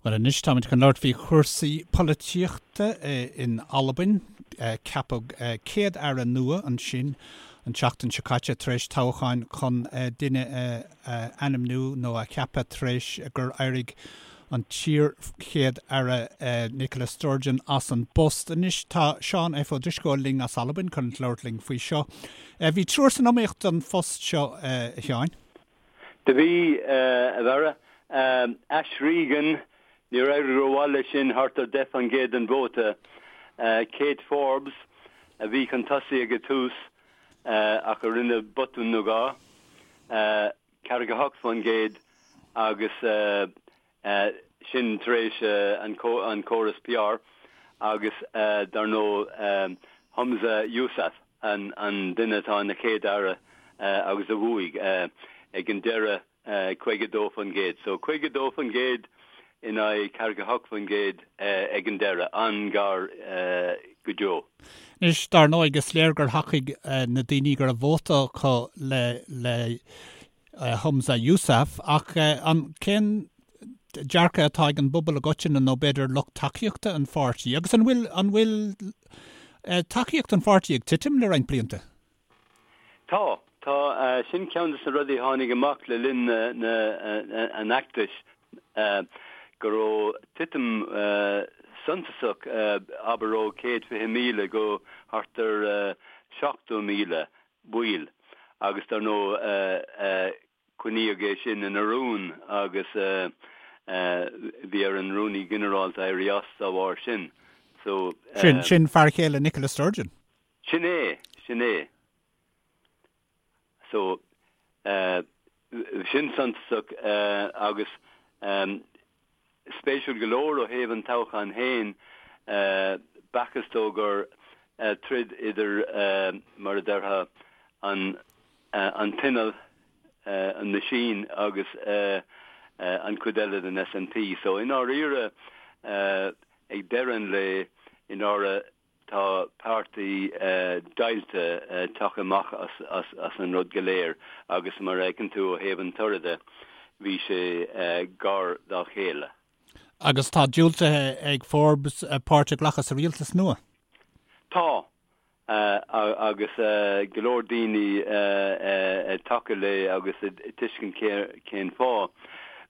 Bhuel anois táimid chun labhairt faoi chúrsaí polaitíochta in Albain. Ceapadh Céad-Aire nua ansin an tseachtain seo caite tar éis toghcháin chun duine a ainmniú nó a cheapadh tar éis gur éirigh an t-iar-Chéad-Aire Nicola Sturgeon as an bpost. Anois tá Seán F. Ó Drisceoil linn as Albain chun labhairt linn faoi seo. Bhí triúr san iomaíocht don phost seo, a Sheáin. Do bhí, a Bharra. Ash Regan, níor éirigh rómhaith leis sin, thart ar 10% den vóta. Kate Forbes, a bhí chun tosaigh ag an tús ach a rinne botún nó dhá, 48% agus sin tar éis an córas PR agus dar ndóigh Humza Yousaf, an duine atá ina Chéad-Aire agus a bhuaigh ag an deireadh 52%. So 52% in aghaidh 48% ag an deireadh, an-ghar go deo. Anois, dar ndóigh, is léir gur thacaigh na daoine go raibh vóta acu le Humza Yousaf, ach an cén dearcadh atá ag an bpobal i gcoitinne nó b'fhéidir lucht tacaíochta an pháirtí? Agus an bhfuil an bhfuil tacaíocht an pháirtí ag titim le roinnt blianta? Tá. Tá. Sin ceann de na rudaí a tháinig amach le linn na an fheachtais, go raibh titim suntasach, abair ó 120,000 go thart ar 70,000 baill agus dar ndóigh coinníodh é sin ina rún agus bhí ar an Rúnaí Ginearálta éirí as dá bharr sin. So. Sin, sin fear chéile Nicola Sturgeon. Sin é, sin é. So, sin suntasach agus Spéisiúil go leor ó thaobh an toghcháin féin, b'fhacthas dó gur troid idir, mar a déarfá, an an t-inneall, an machine, agus an chuid eile den SNP. So, i ndáiríre, ag deireadh an lae, i ndáiríre, Tá páirtí deighilte tagtha amach as an rud go léir agus mar a fheiceann tú ó thaobh an toraidh de, bhí sé gar dá chéile. Agus tá diúltaithe ag Forbes páirt a ghlacadh sa rialtas nua. Tá, agus go leor daoine ag tacú léi agus ag tuiscint cén fáth.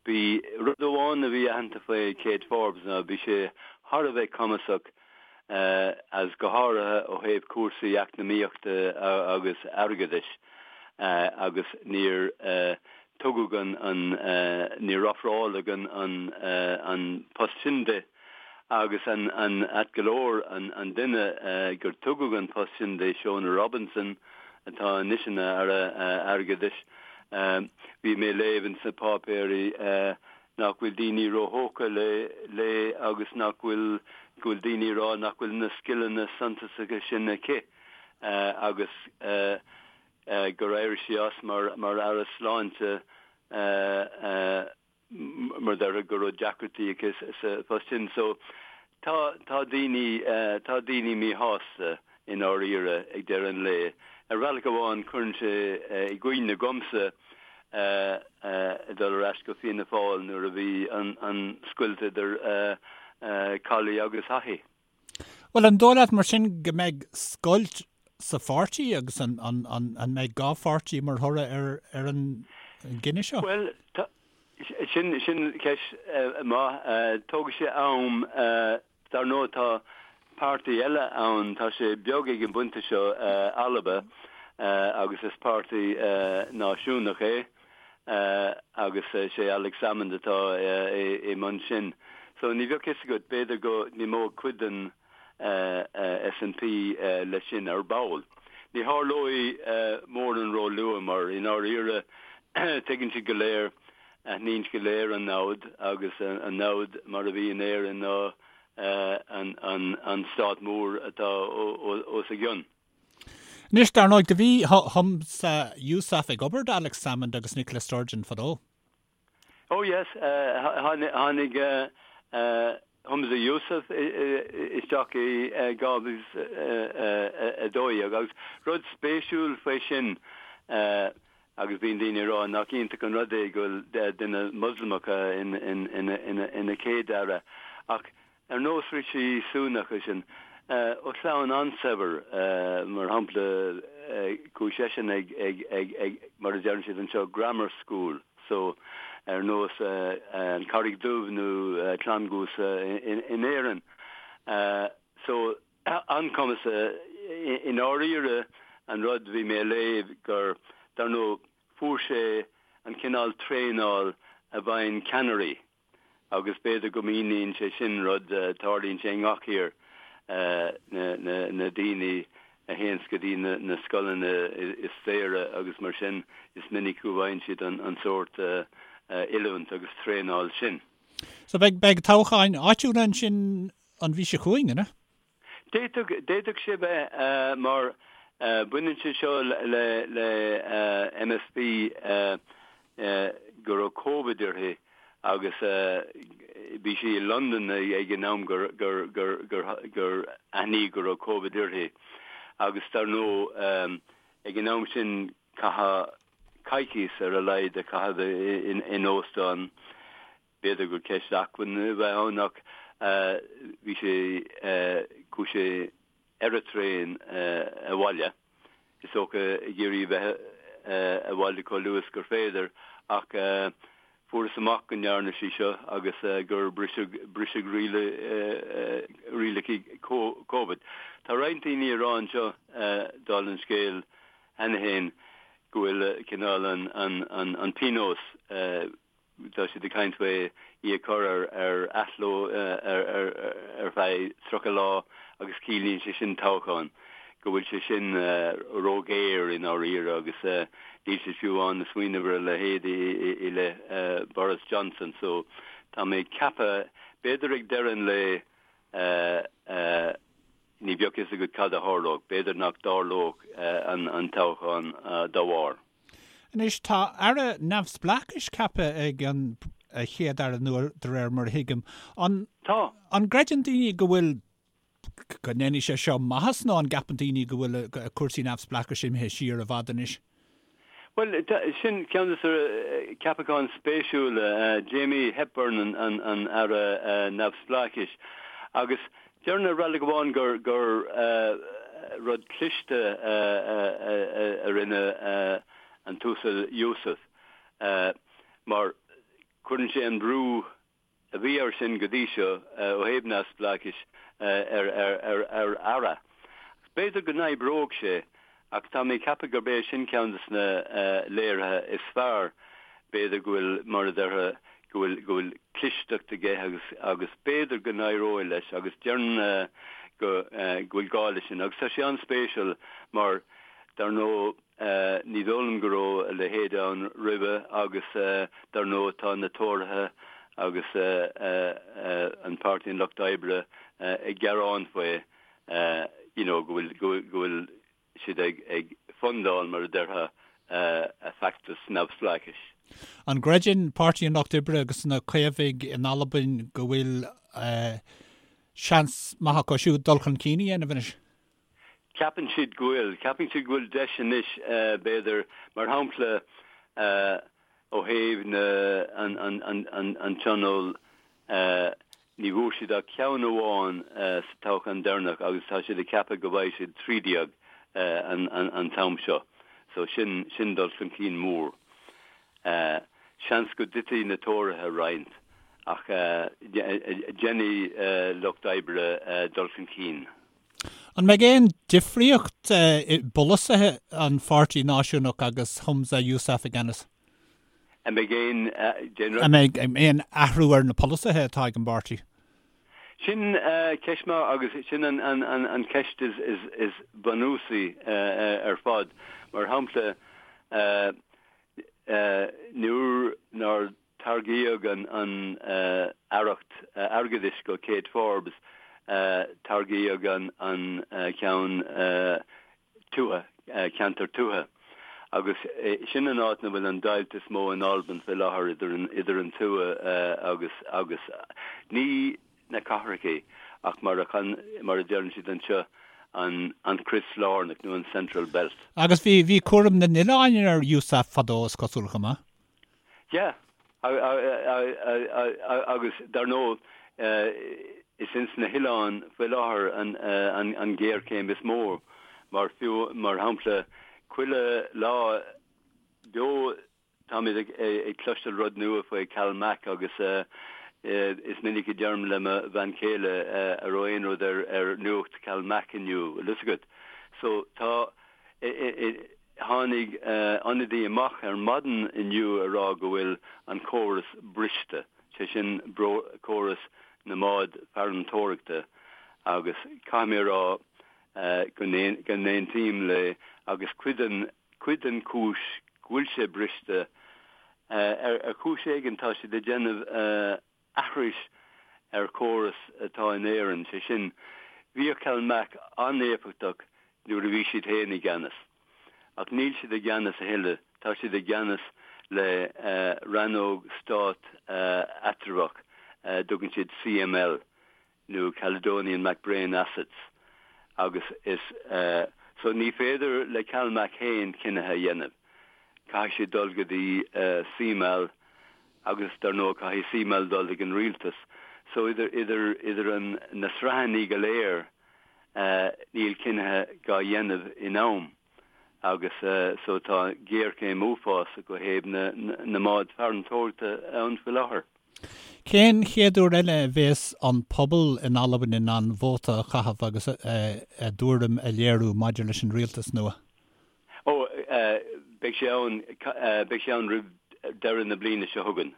Bhí rud amháin a bhí aitheanta faoi Kate Forbes ná bhí sé thar a bheith cumasach agus go háirithe ó thaobh cúrsaí eacnamaíochta agus airgeadais agus níor tugadh an, níor ofráladh an post sin di agus an ait go leor an duine gur tugadh an post sin di, Shona Robison atá anois ina Aire Airgeadais, bhí mé ag léamh ins na páipéirí nach bhfuil daoine róthógtha léi agus nach bhfuil, go bhfuil daoine ag rá nach bhfuil na scileanna suntasacha sin aici agus gur éirigh sí as mar mar Aire Sláinte mar déarfá go raibh deacrachtaí aici sa phost sin. So tá, tá daoine, tá daoine míshásta i ndáiríre ag deireadh an lae. Ar bhealach amháin cuireann sé i gcuimhne dhomsa ag dul ar ais go Fianna Fáil nuair a bhí an scoilt idir Cawley agus Haughey. Bhuel, an dóigh leat mar sin go mbeidh scoilt sa pháirtí agus an mbeidh dhá pháirtí mar thoradh ar an gcinneadh seo? Bhuel, sin ceist mhaith. Tógfaidh sé am. Dar ndóigh tá páirtí eile ann, tá sé beag ag an bpointe seo, Alba, agus is páirtí náisiúnach é agus is é Alex Salmond atá i mbun sin. So ní bheadh fhios agat, b'fhéidir go n-imeodh cuid den SNP leis sin ar ball. Ní tharlóidh mórán róluath mar i ndáiríre tuigeann siad go léir Aithníonn siad go léir an namhaid agus an namhaid mar a bhí in Éirinn ná an stát mór atá os a gcionn. Anois, dar ndóigh, do bhí Humza Yousaf ag obair d'Alex Salmond agus Nicola Sturgeon fadó. Oh yes, tháinig Humza Yousaf isteach i 2012 agus rud spéisiúil faoi sin. Agus bíonn daoine ag rá nach iontach an rud é go bhfuil duine Moslamach ina chéad-aire. Ach ar nós Rishi Sunak sin, ó chlann an-saibhir, mar shampla, chuaigh seisean ag, ag, mar a deireann siad anseo, grammar school, so ar nós an Charraig Dhubh nó Clann Cuasa in Éirinn. So. an-chumas i ndáiríre an rud bhí mé a léamh gur, dar ndóigh, fuair sé an cineál traenáil a bhfaigheann ceannairí agus b'fhéidir go míníonn sé sin rud, tarlaíonn sé i ngach thír, na daoine a théanns go dtí na scoileanna is saoire agus mar sin is minic go bhfaigheann siad an sórt oiliúint agus traenáil sin. So beidh, beidh toghcháin áitiúla ansin an mhí seo chugainn, an ea? D'fhéadfadh, d'fhéadfadh sé bheith mar baineann sé seo le, le MSP go raibh Covid uirthi agus bhí sí i Londain ag an am gur, gur, gur, gur, gur aithníodh go raibh Covid uirthi agus dar ndóigh ag an am sin caitheadh coicís ar a laghad a chaitheamh in óstán. B'fhéidir gur ceist acmhainne a bheith ann ach bhí sé, chuaigh sé ar an traein abhaile, is dócha ag iarraidh a bheith abhaile chomh luath is gur féidir ach fuarthas amach go ndearna sí seo agus gur briseadh, briseadh rialacha Covid. Tá roinnt daoine ag rá anseo, dála an scéil cheana féin, go bhfuil cineál an pionós, tá siad ag caint faoi í a chur ar ar athló ar feadh 30 lá agus ciallaíonn sé sin toghchán, go bhfuil sé sin róghéar i ndáiríre agus níl siad fiú amháin ag smaoineamh ar a leithéid i leith Boris Johnson. So tá mé ag ceapadh, b'fhéidir ag deireadh an lae, ní bheadh fhios agat cad a tharlódh, b'fhéidir nach dtarlódh an toghchán dá bharr. Anois, tá Aire Neamhspleáchais ceaptha ag an Chéad-Aire nua, de réir mar a thuigim. An Tá. An gcreideann daoine go bhfuil, go ndéanfaidh sé seo maitheas nó an gceapann daoine go bhfuil cúrsaí neamhspleáchais imithe siar i bhfad anois? Bhuel, sin ceann de na ceapacháin spéisiúla, Jamie Hepburn an Aire Neamhspleáchais agus Déarfainn ar bhealach amháin gur gur rud cliste a rinne an tUasal Yousaf mar cuireann sé an brú a bhí air sin go dtí seo ó thaobh neamhspleáchais ar ar aire. B'fhéidir go n-oibreoidh sé Ach tá mé ag ceapadh gurb é sin ceann de na léirithe is fearr, b'fhéidir, go bhfuil, mar a déarfá, go bhfuil, go bhfuil clisteacht aige agus, agus b'fhéidir go n-éireoidh leis agus déarfainn go, go bhfuil gá leis sin. Agus tá sé an-spéisiúil mar, dar ndóigh, ní dóigh liom go raibh a leithéid ann roimhe agus dar ndóigh tá na Tóraithe agus an Páirtí an Lucht Oibre ag gearán faoi. you know, go bhfuil, go bhfuil siad ag, ag fundáil, mar a déarfá, a feachtas neamhspleáchais. An gcreideann Páirtí an Lucht Oibre agus na Caomhaigh in Albain go bhfuil seans maith acu siúd dul chun cinn a dhéanamh anois? Ceapann siad go bhfuil. Ceapann siad go bhfuil deis anois, b'fhéidir, mar shampla, ó thaobh na, an, an, an, an, an tionól, Ní bhfuair siad ach ceann amháin sa toghchán deireanach agus tá siad ag ceapadh go bhfaighidh siad 13 an t-am seo. So sin, sin dul chun cinn mór. Seans go dtitfidh na Tóraithe roinnt ach déanfaidh Lucht Oibre dul chun cinn. An mbeidh aon difríocht i bpolasaithe an Pháirtí Náisiúnach agus Humza Yousaf i gceannas? An mbeidh aon, déan rud. An mbeidh aon athrú ar na polasaithe atá ag an bpáirtí? Sin ceist maith agus sin an cheist is bunúsaí ar fad. Mar shampla, nuair nár tairgíodh an aireacht airgeadais go Kate Forbes, tairgíodh an ceann tuaithe, ceantar tuaithe. Agus sin an áit 'na bhfuil an deighilt is mó in Albain fé láthair idir an, idir an tuath agus, agus ní na cathrachaí ach mar a, mar a deireann siad anseo. an crios lárnach nó an central belt. Agus bhí, bhí cúram na n-oileán ar Yousaf fadó, is cosúil, chomh maith. Yeah, agus dar ndóigh is ins na hoileáin faoi láthair an ghéarchéim is mó, mar fiú, mar shampla, chuile lá beo Táimid ag cloisteáil rud nua faoi CalMac agus is minic a deirim le mo bhean chéile an raibh aon rud ar nuacht CalMac inniu, bhfuil fhios agat. So tá, tháinig ionadaí amach ar maidin inniu a rá go bhfuil an córas briste, sé sin córas na mbád farantóireachta agus caithfidh mé a rá go n-aontaím léi agus cuid den Cuid den chúis go bhfuil sé briste, ar chúis éigin tá siad ag déanamh aithris ar chóras atá in Éirinn, sé sin, bhíodh CalMac an-éifeachtach nuair a bhí siad féin i gceannas. Ach níl siad i gceannas a thuilleadh, tá siad i gceannas le rannóg stát eatramhach, dtugann siad CML. nó Caledonian MacBrayne Assets agus is so ní féidir le CalMac féin cinnithe a dhéanamh. Caithfidh siad dul go dtí CMAL agus dar ndóigh caithfidh CMAL dul ag an rialtas. So idir idir idir an na sraitheanna go léir níl cinnithe dhá dhéanamh in am agus so tá géarchéim uafásach ó thaobh na na mbád farantóireachta ann faoi láthair. Cén chéad uair eile a bhéas an pobal in Albain in ann vóta a chaitheamh agus a dtuairim a léiriú maidir leis an rialtas nua? Ó, beidh sé ann, beidh sé ann roimh deireadh na bliana seo chugainn.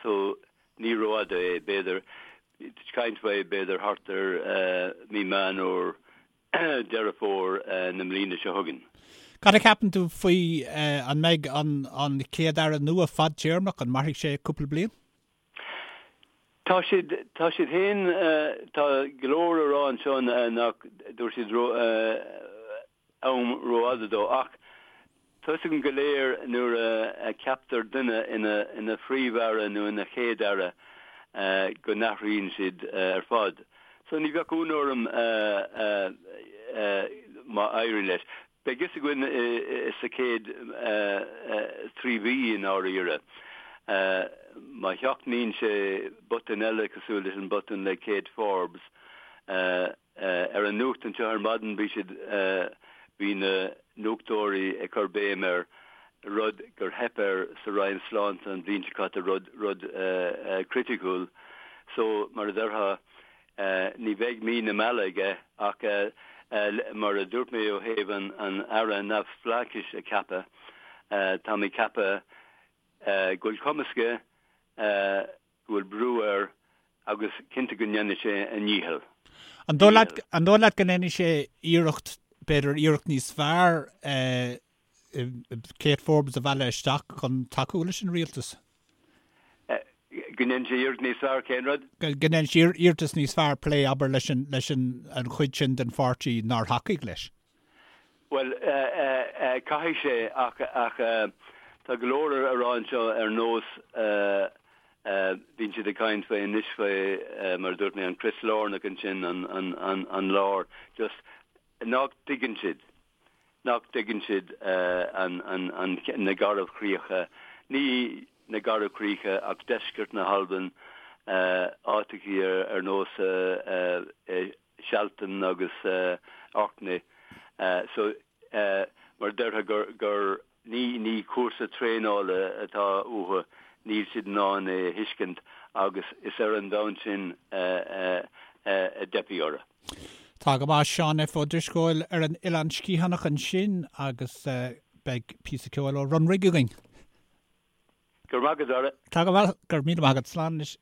So, ní rófhada é, b'fhéidir, caint faoi b'fhéidir thart ar mí Meán Fhómhair Deireadh Fómhair na mbliana seo chugainn. Cad a cheapann tú faoi, an mbeidh an Chéad-Aire nua fadtéarmach, an mairfidh sé cúpla bliain? Tá siad, tá siad féin, tá go leor a rá anseo nach dtabharfaidh siad am rófhada dó ach Tá 'fhios againn go léir nuair a cheaptar duine ina Phríomh-Aire nó ina Chéad-Aire go n-athraíonn siad ar fad. So ní bheadh ionadh orm má éiríonn leis. Beidh fhios againn sa chéad 3 mhí i ndáiríre. Má sheachnaíonn sé botún eile cosúil leis an botún le Kate Forbes, Ar an nuacht anseo ar maidin bhí siad, bhí na nuachtóirí ag cur béim ar rud gur theip air sa Roinn Sláinte an bhliain seo caite, rud, rud criticiúil. So, mar a déarfá, ní bheidh mí na meala aige ach mar a dúirt mé ó thaobh an, an Aire neamhspleáchais a cheapadh, tá mé ag ceapadh go bhfuil cumas aige, go bhfuil brú air agus cinnte go ndéanfaidh sé a ndícheall. An dóigh leat, an dóigh leat go ndéanfaidh sé iarracht, b'fhéidir iarracht níos fearr Kate Forbes a mhealladh isteach chun tacú leis an rialtas? Go ndéanfaidh sé iarracht níos fearr cén rud? Go ndéanfaidh sé iarratas níos fearr plé, abair, leis an, leis an, an chuid sin den pháirtí nár thacaigh leis. Bhuel, caithfidh sé ach, ach tá go leor a rá anseo ar nós, bíonn siad ag caint faoi anois faoi, mar a dúirt mé, an crios lárnach ansin, an, an, an, an lár, just nach dtuigeann siad, nach dtuigeann siad an, an, an, na garbhchríocha, ní na garbhchríocha ach deisceart na hAlban, áiteachaí ar, ar nós Sealtainn agus Orkney. So, mar a déarfá gur, gur, ní, ní cúrsa traenála atá uathu, níl siad in ann é a thuiscint agus is ar an bhonn sin a dteipfidh orthu. Tá go maith, Seán F. Ó Drisceoil ar an Oileán Sciathánach ansin agus beidh píosa ceoil ó Runrig againn. Go raibh maith agat, a Dhara. Tá go maith, go raibh míle maith agat. Slán anois.